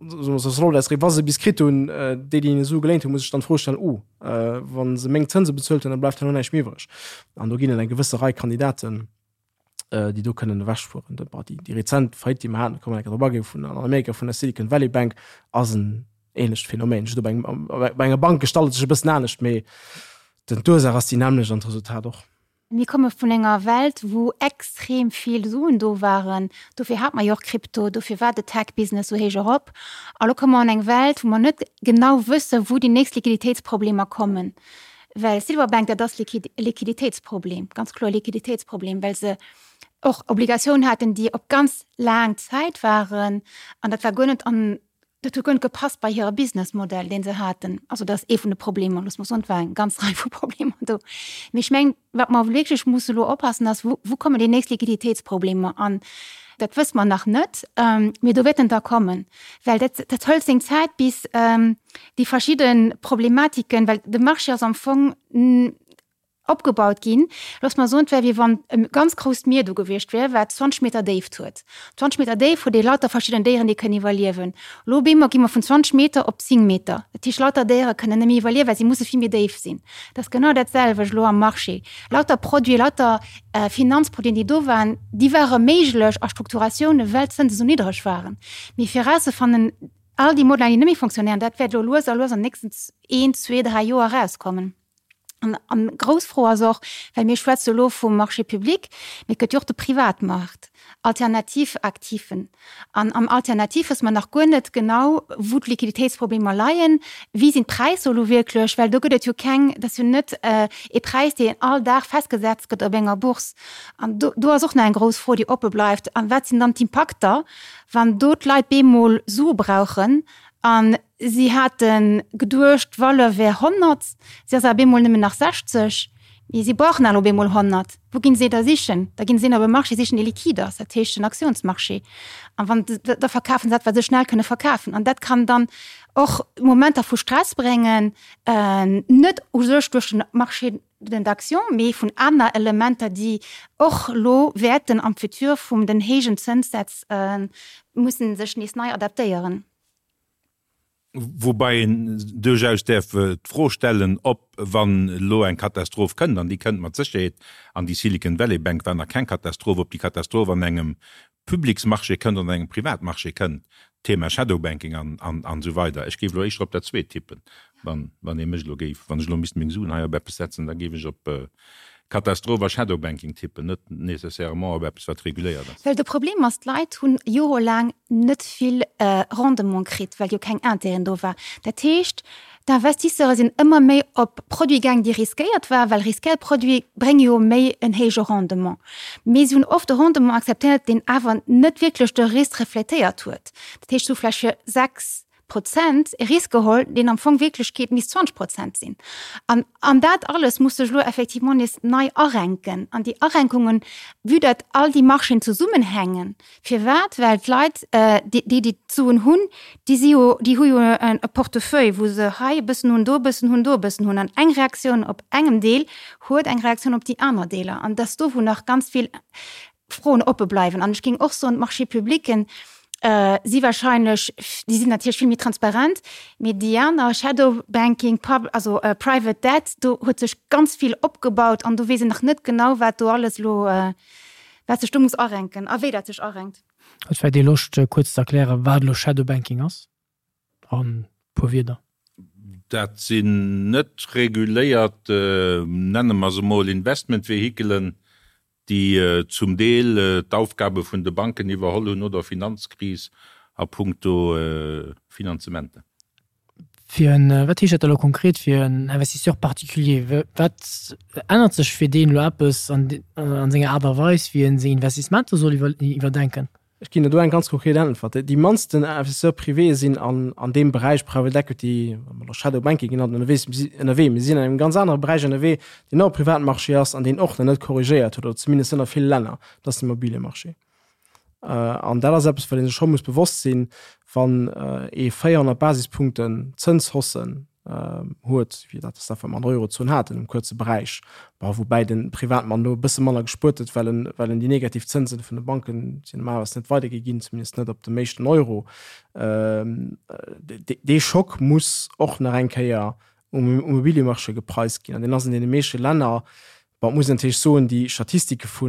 wa se bis kritt hunn, déi, déi hinne Sue geléint hunn, muss ech dann d'Fro stellen, Oh, wa se meng Zënse bezuelt hunn, da bleift herno näischt méi iwwreg. An do ginn et eng gewësse Rei Kandidaten, déi do kënnen ewechfueren. Déi rezent Faillite, déi mer haten, do kann mer enker drop aginn, vun an Amerika vun der Silicon Valley Bank, ass en ähnlecht Phänomen. Just op engem, bei enger Bank gestalt et sech e bëssen anescht, mee den, d'Ursaach ass déi nämmlecht an d'Resultat och. Mir komme vun enger Welt, wou extrem vill Suen do waren. Dofir hat mer jo och Krypto, dofir war de Tech-Business esou héich erop. A lo komme mer an eng Welt, wou mer net genau wëssen, wou déi nächst Liquiditéitsproblemer kommen. Well Silver Bank, dat ass e Liquiditéitsproblem, ganz kloer e Liquiditéitsproblem, well se och Obligatiounen haten, déi op ganz laang Zäit waren. An dat war guer net an Dat huet guer net gepasst bei hire Businessmodell, dee se haten. Also dat ass ee vun de Problemer, loosse mer soen, et war eng ganz Rei vu Problemer do. Mee ech mengen, wat mer wierklech musse elo oppassen, ass, wou, wou kommen déi nächst Liquiditéitsproblemer? An dat wësse mer nach net, mee do wäerten der kommen, well dat, dat hëlt seng Zäit, bis déi verschidde Problematiken, well de Marché ass am Fong Opgebaut ginn. Looss mer soen, et wär wéi wann e ganz grousst Mier do gewiescht wär, wat 20 Meter Déift huet. 20 Meter Déift huet ee lauter verschidden Déieren, déi kënnen iwwerliewen. Elo op eemol gi mer vun 20 Meter op 10 Meter. Dat heescht, lauter Déiere kënnen net méi iwwerliewen, well si musse vill méi déif sinn. Dat ass genau dat selwecht elo am Marché. Lauter Produiten, lauter Finanzproduiten, déi do waren, déi ware méiglech a Strukturatiounen, well d'Zënse sou niddreg waren. Mee fir erauszefannen, all déi Modeller, déi net méi fonctionnéieren, dat wäert elo lues a lues an den nächsten een, zwee, dräi Joer erauskommen. An, an grouss Fro ass och, well mir schwätze elo vum Marché public, mee et gëtt jo och de Privatmarkt, alternativ Aktiven. An am Alternativ wësse mer nach guer net genau, wou d'Liquiditéitsproblemer leien, wéi sinn d'Präisser elo wierklech, well do gëtt et jo keng, dat ass jo net ee Präis, deen all Dag festgesetzt gëtt op enger Bourse. An do, do ass och nach eng grouss Fro, déi oppe bleift. An wat sinn dann d'Impakter, wann do d'Leit bemol Sue brauchen an Si hate geduecht, d'Valeur wär 100, si ass awer bemol nëmmen nach 60. Mee si brauchen awer elo bemol 100. Wou ginn se da sichen? Da ginn se een op e Marché sichen, dee liquide ass, dat heescht den Aktiounsmarché. An wann, da verkafen se dat, wat se schnell kënne verkafen. An dat kann dann och Momenter vu Stress bréngen, net u sech duerch den Marché d'actions, mee vun aner Elementer, déi och elo wäerten am Futur vum den héijen Zënssätz mussen sech nees nei adaptéieren. Woubäi een duerchaus däerf d'Fro stellen, ob, wann elo eng Katastroph kënnt, an déi kënnt mat Sécherheet, an déi Silicon Valley Bank war nach keng Katastroph, ob déi Katastroph an engem Publicsmarché kënnt oder an engem Privatmarché kënnt, Thema Shadow Banking an esou weider. Ech géif elo éischter op dat Zweet tippen, wann ee mech elo géif, wann ech elo misst meng Suen hei op eppes setzen, da géif ech op Katastroph a Shadow Banking tippen, net nécessairement op eppes wat reguléiert ass. Well de Problem ass, d'Leit hunn jorelaang net vill Rendement kritt, well jo keng Intérêten do war. Dat heescht, d'Investisseure sinn ëmmer méi op Produite gaang, déi riskéiert waren, well riskéiert Produite brénge jo méi en héije Rendement. Mee si hunn oft e Rendement akzeptéiert, deen awer net wierklech de Risk refletéiert huet. Dat heescht, se hu vläicht fir 6. Prozent e Risk geholl, deen am Fong Wierklechkeet misst 20 Prozent sinn. An, an dat alles muss sech elo effectivement nees nei arenken. An déi Arenkungen, vue datt all déi Marchéen zesummenhängen, firwat? Well d'Leit, déi, déi d'Suen hunn, déi si jo, déi hu jo e Portefeuille, wou se hei e bëssen hunn, do e bëssen hunn, do e bëssen hunn. An eng Reaktioun op engem Deel huet eng Reaktioun op déi aner Deeler. An et ass do, wou nach ganz vill Froen oppe bleiwen. An ech géing och soen, d'Marchés publics si wahrscheinlech, déi sinn natierlech vill méi transparent, mee déi aner, Shadow Banking, Pub-, also Private Debt, do huet sech ganz vill opgebaut an do weess een nach net genau, wat do alles elo, wat sech do muss arenken a wéi dat sech arenkt. Huet vläicht ee Loscht, kuerz ze erklären, wat elo Shadow Banking ass? An puer Wierder. Dat sinn net reguléiert, nenne mer se mol Investmentvehikelen, déi zum Deel d'Aufgabe vun de Banken iwwerholl hunn no der Finanzkris a puncto Finanzementer. Fir en, wat heescht dat da elo konkret fir en Investisseur particulier? Wat ännert sech fir deen elo eppes an senger Aart a Weis, wéi en seng Investissementer soll iwwerdenken? Ech ginn der do eng ganz konkret Äntwert. Déi mannsten Investisseurs privés sinn an, an deem Beräich Private Equity, oder Shadow Banking genannt, ënnerwees, ënnerwee. Mir sinn an engem ganz anere Beräich ënnerwee, deen och e Privatmarché ass an deen och nach net korrigéiert huet, oder zumindest net a ville Länner, dat ass den Immobiliemarché. An dat ass eppes, wat ee sech scho muss bewosst sinn, wann ee 400 Basispunkten Zënshaussen huet, wéi dat ass dat, wat mer an der Eurozon haten um kuerze Beräich, bon, woubäi de Privatmann do e bësse manner gespuert huet, well en, well en déi negativ Zënsen vun de Banken sinn normalerweis net weidergi ginn, zumindest net op dem éischten Euro. Dee Schock muss och nach eng Kéier um Immobiliemarché gepreist ginn an deen ass an deene meeschte Länner Bon, et muss een natierlech soen, déi Statistike vu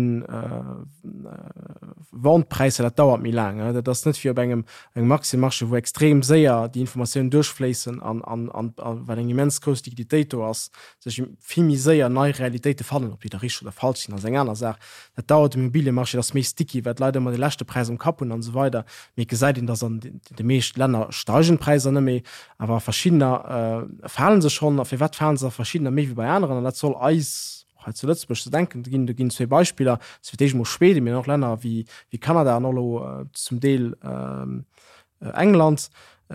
Vente-Präisser, dat dauert méi laang. Dat ass net wéi op engem engem Aktiëmarché, wou extrem séier déi Informatiounen duerchfléissen an an an well eng immens grouss Liquiditéit do ass, sech vill méi séier nei Realitéite fannen. Ob déi da richteg oder falsch sinn, ass eng aner Saach. Dat dauert um Immobiliemarché, dat ass méi sticky, well d'Leit ëmmer de leschte Präis am Kapp hunn an esou weider. Mee et gesäit een, datt an de meescht Länner steigen d'Präisser net méi, Awer a verschiddener falen se schonn. A firwat falen se a verschiddener méi wéi bei aneren? An dat soll eis och hei zu Lëtzebuerg ze denken ginn. Do ginn zwee Beispiller, dat ass fir d'éischt emol Schweden, mee och Länner wéi Kanada an och elo zum Deel England.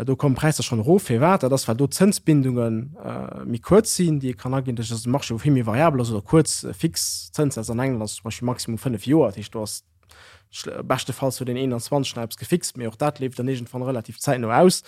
Do kommen d'Präisser schonn erof. Firwat? Dat ass, well do d'Zënsbindunge méi kuerz sinn, déi ee kann aginn. Dat ass e Marché, wou vill méi variabel ass oder kuerz fix Zënssätz. An England ass zum Beispill maximum 5 Joer. Dat heescht, do ass Beschtefalls huet een 21 nach eppes gefixt, mee och dat leeft dann iergendwann relativ zäitno aus.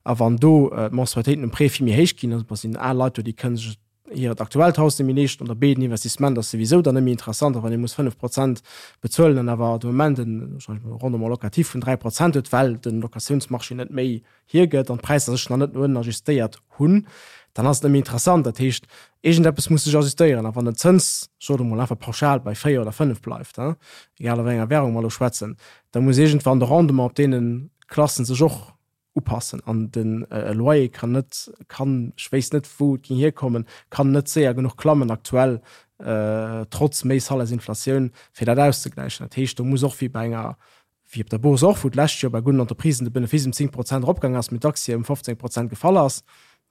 A wann do d'Mensualitéiten um Prêt vill méi héich ginn, also sinn al Leit do, déi kënne sech hiert aktuellt Haus net méi leeschten oder B, den Investissement ass souwisou dann net méi interessant. A wann ee muss 5 Prozent bezuelen an awer de Moment en Rendement locatif vun 3 Prozent huet, well de Locatiounsmarché net méi hiergëtt an d'Präisser sech nach net no ënnen ajustéiert hunn, dann ass et net méi interessant. Dat heescht, iergendeppes muss sech ajustéieren. A wann den Zëns, ech soen emol einfach pauschal, bei 4 oder 5 bleift, egal a wéi enger Währung mer elo schwätzen, da muss iergendwann de Rendement op deene Klassen sech och upassen. An de Loyer kann net, kann, ech wéisst net wou et géing hierkommen, kann net séier genuch klammen aktuell, trotz méi Salairsinflatioun, fir dat auszegläichen. Dat heescht, do muss och wéi bei enger wéi op der Bourse och, wou d'lescht Joer bei gudden Entreprisen de Benefice ëm 10 Prozent eropgaang ass, mee d'Aktie ëm 15 Prozent gefall ass.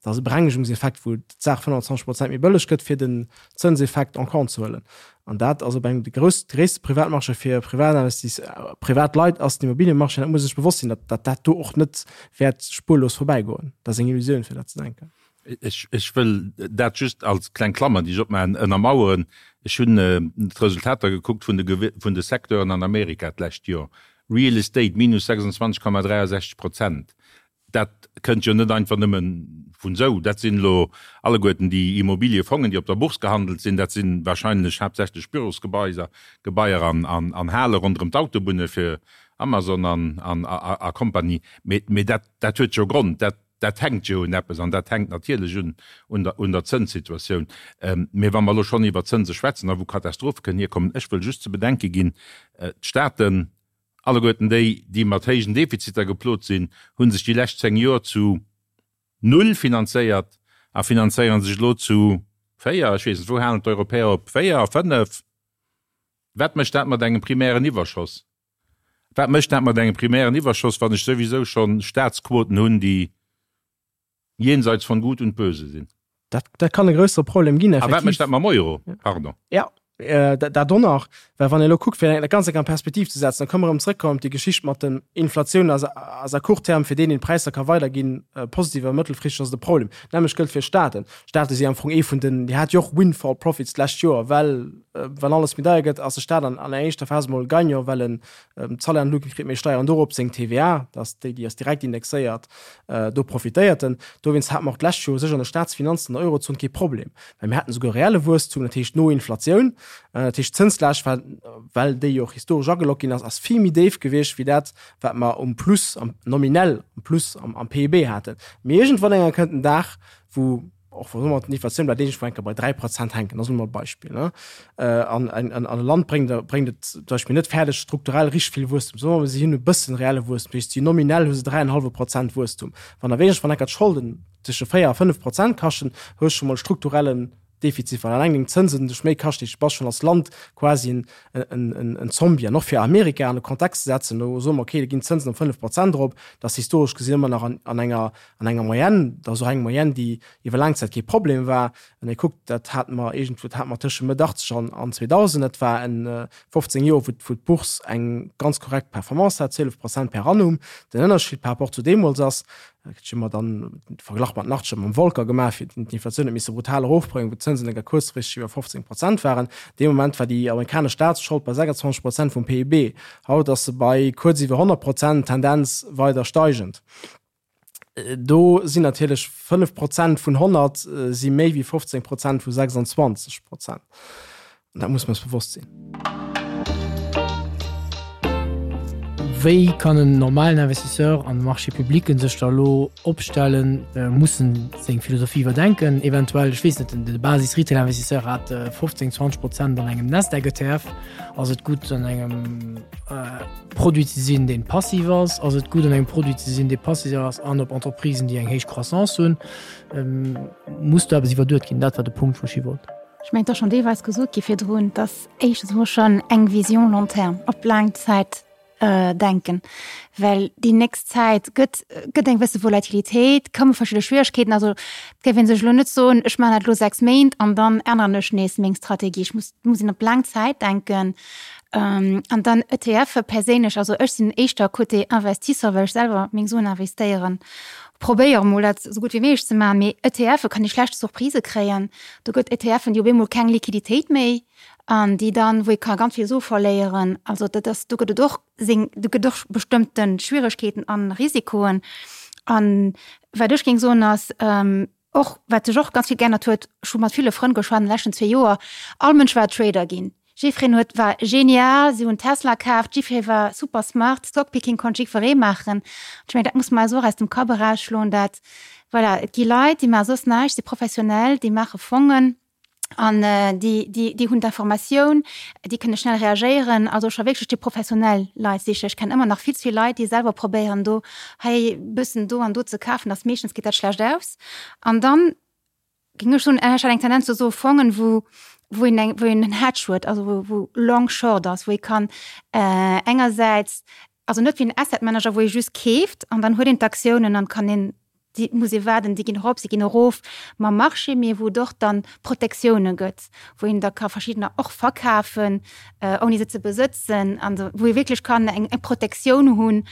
Dat ass e Berengegungseffekt, wou d'Saach 25 Prozent méi bëlleg gëtt, fir den Zënseffekt en compte ze huelen. An dat ass op engem de grouss, gréisste Privatmarché fir Privatinvestis, privat Leit ass den Immobilienmarché. Dat muss ee sech bewosst sinn, datt dat do och net wäert spurlos vorbäigoen. Dat ass eng Illusioun, fir dat ze denken. Ech wëll dat just als kleng Klammer, déi ech opmaachen, ënnermaueren. Ech hunn d'Resultater gekuckt vun de vun de Secteuren an Amerika d'lescht Joer. Real Estate minus 26,63 Prozent. Dat kënnt jo net einfach nëmme vun esou. Dat sinn elo alleguerten déi Immobiliefongen, déi op der Bourse gehandelt sinn. Dat si wahrscheinlech haaptsächlech Bürosgebaiser, Gebaier an Hale ronderëm d'Autobunne fir Amazon an a Kompanie. Mee dat huet jo Grond. Dat Dat hänkt jo un eppes an dat hänkt natierlech un un der un der Zënssituatioun. Mee wa mer elo schonn iwwer Zënse schwätzen a wou Katastrophe kënnen hierkommen, ech wëll just ze bedenke ginn, d'Staaten, alleguerten déi, déi mat héijen Defiziter geplot sinn, hu sech déi lescht 10 Joer zu null finanzéiert a finanzéiere sech elo zu 4, ech weess net, wou halen d'Europäer op, 4, 5? Wat mécht dat mat engem primären Iwwerschoss? Wat mécht dat mat engem primären Iwwerschoss, wann ech souwisou schonn Staatsquoten hunn, déi jenseits von Gut und Böse sinn? Dat, dat kann e grössere Problem ginn, effektiv. A wat mécht dat mam Euro? Pardon. Ja. Dat och nach, well wann ee elo kuckt, fir dat Ganzt eng an Perspektiv ze setzen, da kënne mer erëm zrëckkommen op déi Geschicht mat den Inflatioun ass ass à court terme fir deen, deen d'Präisser ka weiderginn, positiv, awer mëttelfristeg ass et e Problem. D'nämmlecht gëllt fir Staaten. Staate si am Fong ee vun den, déi hat jo och Windfall profits d'lescht Joer, well wann alles méi deier gëtt, ass de Staat an an enger éischter Phas emol Gagnant, well en d'Salaire an d'Luucht kritt, méi Steieren dorop, seng TVA, dat ass déi, déi ass direkt indexéiert, do profitéiert en. Dowéinst hate mer och d'lescht Joer u sech an de Staatsfinanzen an der Eurozon kee Problem. Well mir haten esouguer reelle Wuesstum, dat heescht no Inflatioun. Dat heescht d'Zënslaascht war, well déi jo och historesch ageloggt ginn ass, ass vill méi déif gewiescht wéi dat, wat mer um Plus, am nominell um Plus am, am PIB haten. Mee iergendwann eng Kéier kënnt en Dag, wou och wa soe mer d'Inflatioun bleift iergendwou eng Kéier bei 3 Prozent hänken, dat ass elo mol e Beispill, ne, an en an e Land bréngt bréngt et zum Beispill net fäerdeg strukturell richteg vill Wuesstum, soe mer mol si hunn e bëssen reelle Wuesstum, dat heescht si nominell hu se 3,5 Prozent Wuesstum. Wann awer iergendwann eng Kéier d'Scholden tësche 4 a 5 Prozent kaschten, hues scho mol strukturellen Defizit, well alleng deng Zënsen dech méi kaschten. Du bass schonn als Land quasi en, en, en Zombie. An och fir Amerika an de Kontext ze setzen, do soe mer, okay, do ginn d'Zënsen op 5 Prozent erop, dat ass historesch gesinn ëmmer nach an, an enger, an enger Moyenne, dat ass och eng Moyenne, déi iwwer laang Zäit kee Problem war. Wann ee kuckt, dat hate mer iergendwou, dat hate mer tësche Mëtt 80 an, an 2000, dat war en 15 Joer, wou, wou d'Bourse eng ganz korrekt Performance hat, 12 Prozent per annum. Den Ënnerscheed par rapport zu deemools ass, Ech hu mer dann de Verglach mat Nachtsche mam Volcker gemaach, fir d'Inflatioun huet misse brutal erofbréngen, wou d'Zënsen enker kuerzfristeg iwwer 15 Prozent waren. Dee Moment war déi amerikanesch Staatsschold bei 26 Prozent vum PIB. Haut ass se bei kuerz iwwer 100 Prozent, Tendenz weider steigend. Do sinn natierlech 5 Prozent vun 100 si méi wéi 15 Prozent vu 26 Prozent. An dat muss mer eis bewosst sinn. Wéi kann en normalen Investisseur an de Marchés publics sech da elo opstellen? Muss en seng Philosophie iwwerdenken? Eventuell, ech weess net, de Basis-Retail-Investisseur hat 15, 20 Prozent an engem Nasdaq-ETF. Ass et gutt an engem Produit ze sinn, deen passiv ass? Ass et gutt an engem Produit ze sinn, dee passiv ass an op Entreprisen, déi eng héich Croissance hunn? Muss do eppes iwwerduet ginn? Dat war de Punkt, wou ech hi wollt. Ech mengen, et ass schonn deelweis gesot gi virdrun, dass éischtens emol schonn eng Vision long terme, op laang Zäit denken, well déi nächst Zäit gëtt, gëtt eng gewësse Volatilitéit, komme verschidde Schwieregkeeten. Also et géif ee sech elo net soen, ech maachen dat elo 6 Méint an dann änneren ech nees meng Strategie. Ech muss, muss een op laang Zäit denken. An dann ETFe perséinlech, also ech sinn éischter Côté Investisseur, well ech selwer meng Suen investéieren, probéiere mol dat esou gutt wéi méiglech ze maachen, mee ETFe kann ee schlecht Surprisë kréien. Do gëtt ETFen, déi op eemol keng Liquiditéit méi an déi dann, wou ee ka ganz vill Sue verléieren. Also dat ass, do gëtt et och seng, do gëtt och bestëmmte Schwieregkeeten an Risikoen. An wat ech géing soen ass, och wat sech och ganz vill geännert huet, ech hu mat ville Frënn geschwat an de leschten zwee Joer, all Mënsch war Trader ginn. Jiffreen huet, war genial, si hunn Tesla kaaft, jiffree war super smart, Stockpicking konnt jiddweree maachen. Ech mengen, dat muss mer eis och aus dem Kapp erausschloen, dat, voilà, et gi Leit, déi maache soss näischt, si professionell, déi maache Fongen an déi, déi, déi hunn d'Informatioun, déi kënne schnell reagéieren. Also scho wierklech déi professionell Leit sichen. Ech kennen ëmmer nach vill ze vill Leit, déi selwer probéieren, do hei bëssen do an do ze kafen, dass meeschtens geet dat schlecht aus. An dann Géing ech soen, ech hat eng Tendenz zu esou Fongen, wou, wou een eng, wou een en Hedge huet, also wou, wou long short ass, wou ee kann engersäits, also net wéi en Asset Manager, wou ee just keeft an dann huet een d'Aktiounen an kann een, déi muss ee waarden, déi ginn erop, se ginn erof mam Marché, mee wou et och dann Protektioune gëtt, wou een da ka verschiddener och verkafen, ouni se ze besëtzen, an wou ee wierklech kann eng, eng Protektioun hunn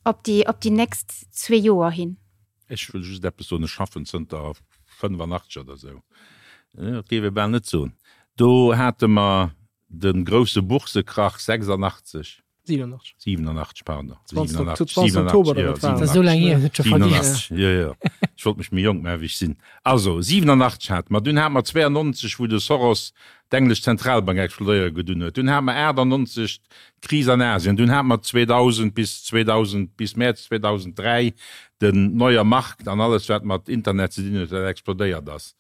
op déi, op déi nächst zwee Joer hin. Ech wëll just eppes soen, Ech schaffen zënter 85 oder esou, dat géif ee bal net soen, do hate mer de grousse Boursekrach 86, 87, 87, pardon, 20 87, Oktober, jo, 87, jo, jo, ech wollt mech méi jonk maachen, wéi ech sinn. Also, 87 hate mer, dunn hate mer 92, wou de Soros d'englesch Zentralbank explodéiere gedunn huet, dunn hate mer 98 d'Kris an Asien, dunn hate mer 2000 bis 2000, bis Mäerz 2003 den Neuer Markt an alles wat mat Internet ze dinn huet, wat explodéiert ass.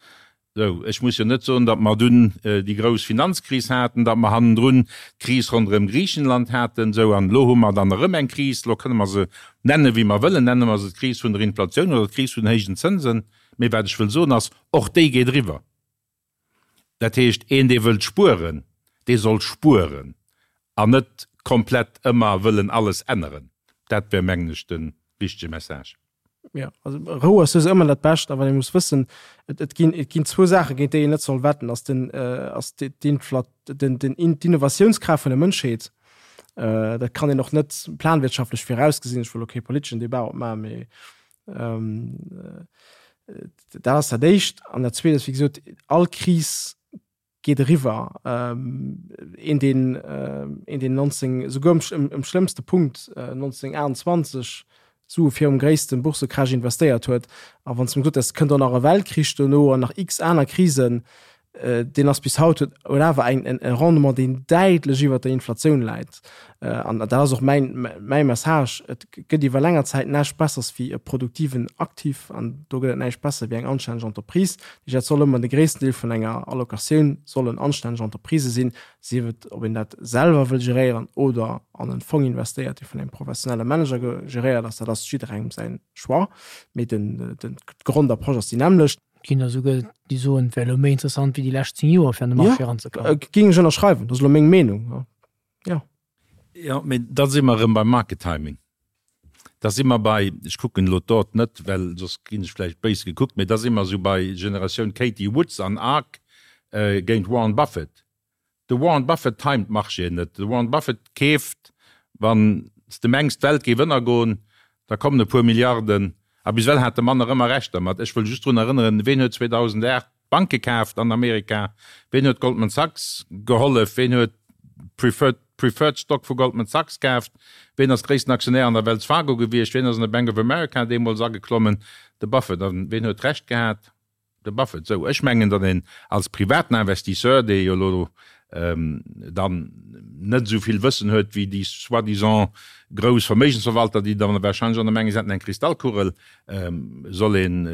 Sou, ech muss jo net soen, datt mer dunn déi grouss Finanzkris haten, datt mer hannendrun d'Kris ronderëm Griichenland haten. Sou, an elo hu mer dann erëm eng Kris, elo kënne mer se nenne wéi mer wëllen, nenne mer se d'Kris vun der Inflatioun oder d'Kris vun den héijen Zënsen, mee wat ech wëll soen ass, och déi geet eriwwer. Dat heescht, een dee wëllt spueren, dee soll spueren an net komplett ëmmer wëllen alles änneren. Dat wär, mengen ech, de wichtege Message. Jo, also Rou ass souwisou ëmmer dat Bescht, awer ee muss wëssen, et, et ginn, et ginn zwou Saache géint déi een net soll wetten, ass den, ass d'Inflat, den, den, d'Innovatiounskraaft vun der Mënschheet. Dat kann een och net planwirtschaftlech virausgesinn. Ech wëll elo kee politeschen Debat opmaachen, mee dat ass dat Éischt. An dat Zweet ass, wéi gesot, all Kris geet eriwwer. Een deen een deen 19 esouguer um um schlëmmste Punkt 1928 Sue virum gréisste Bourssecrash investéiert huet, a wann s de em gesot häss, et kënnt och nach e Weltkrich dono an nach x aner Krisen, deen ass bis haut huet huet awer eng en e Rendement deen däitlech iwwert der Inflatioun läit. An dat ass och mäin mäi Message, et gëtt iwwer länger Zäit näischt Bessers wéi e produktiven Aktiv an do gëtt et näischt besser wéi eng anstänneg Entreprise. Dat soll ëmmer de gréissten Deel vun enger Allocatioun sollen anstänneg Entreprisë sinn, sief et ob een dat selwer wëll geréieren oder an en Fong investéiert, dee vun engem professionelle Manager geréiert ass. Dat ass jidderengem säin Choix, mee den d'Grondapproche ass déi nämmlecht. Et ginn der esouguer, déi soen, et wär elo méi interessant wéi déi lescht 10 Joer fir an de Marché eranzekommen. Jo, géing ech ënnerschreiwen. Dat ass elo meng Meenung, jo. Jo, mee da si mer erëm beim Market Timing. Da si mer bei, ech kucken elo d'Dot net, well soss ginn ech vläicht béis gekuckt, mee da si mer esou bei Generatioun Cathie Woods an Ark géint Warren Buffett. De Warren Buffett timet d'Marchéen net. De Warren Buffett keeft, wann s de mengs d'Welt géif ënnergoen, da kommen e puer Milliarden. A bis ewell hat de Mann nach ëmmer Recht dermat. Ech wëll just drun erënneren, ween huet 2008 Banke kaaft an Amerika? Ween huet Goldman Sachs gehollef? Ween huet Preferred Preferred Stock vu Goldman Sachs kaaft? Ween ass gréissten Aktionär an der Wells Fargo gewiescht? Ween ass an de Bank of America deemools ageklommen? De Buffett. A ween huet Recht gehat? De Buffett. Sou, ech mengen, datt een als privaten Investisseur, dee jo elo dann net esou vill Wëssen huet wéi déi soi-disant grouss Verméigensverwalter, déi dann wahrscheinlech och nach mengen, se hätten eng Kristallkugel, soll een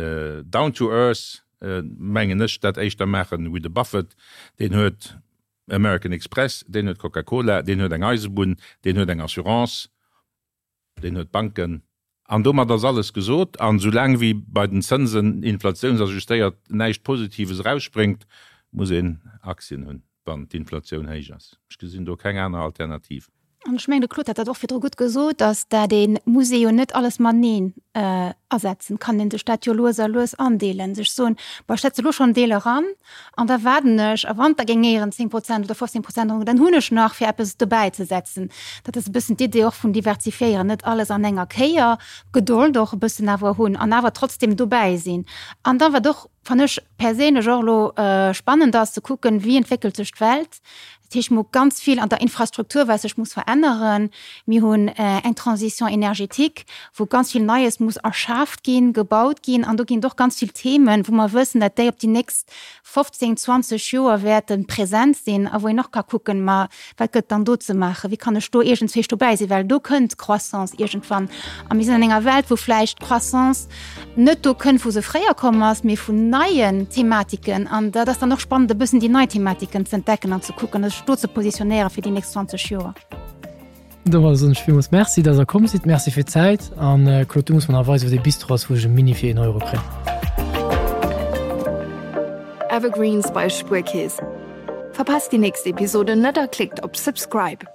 down to earth, mengen ech, dat éischter maachen wéi de Buffett. Deen huet American Express, deen huet Coca-Cola, deen huet eng Eisebunn, deen huet eng Assurance, deen huet Banken. An domat ass alles gesot. An soulaang wéi bei den Zënsen inflatiounsajustéiert näischt Positives erausspréngt, muss een Aktien hunn, wann d'Inflatioun héich ass. Ech gesinn do keng aner Alternativ. An ech mengen, de Claude hat dat och virdru gutt gesot, dass dat ee muss ee jo net alles mateneen asetzen. Kann ee sech dat jo lues a lues andeelen, sech soen, bon, ech setze elo schonn en Deel eran an da waarden ech a wann da géing éieren 10 Prozent oder 15 Prozent erof, dann hunn ech nach fir eppes dobäi ze setzen. Dat ass e bëssen d'Idee och vun diversifiéieren, net alles an enger Kéier, Gedold och e bëssen awer hunn an awer trotzdem dobäi sinn. An da wat och, fannen ech perséinlech och elo spannend ass, ze kucken, wéi entwéckelt sech d'Welt, Dat heescht, mir hu ganz vill an der Infrastruktur, wat sech muss veränneren. Mir hunn eng Transition énergétique, wou ganz vill Neies muss erschaaft ginn, gebaut ginn. An do ginn et och ganz vill Themen, wou mer wëssen, datt déi op déi nächst 15, 20 Joer wäerte present sinn a wou een och ka kucken, ma wat gëtt dann do ze maachen, wéi kann ech do iergendzwéi dobäi sinn, well do kënnt d'Croissance iergendwann. A mir sinn an enger Welt, wou vläicht d'Croissance net do kënnt, wou se fréier komm ass, mee vun neien Thematiken. An dat ass dann och spannend, e bëssen déi nei Thematiken ze entdecken an ze kucken, sech do ze positionéieren fir déi nächst 20 Joer. Domadder soen ech villmools Merci, dass Der komm sidd. Merci fir d'Zäit. An Claude, du muss mer nach weisen, wou dee Bistro ass, wou ech e Mini fir een Euro kréien. Evergreens bei Spuerkeess. Verpasst déi nächst Episode net a klickt op Subscribe.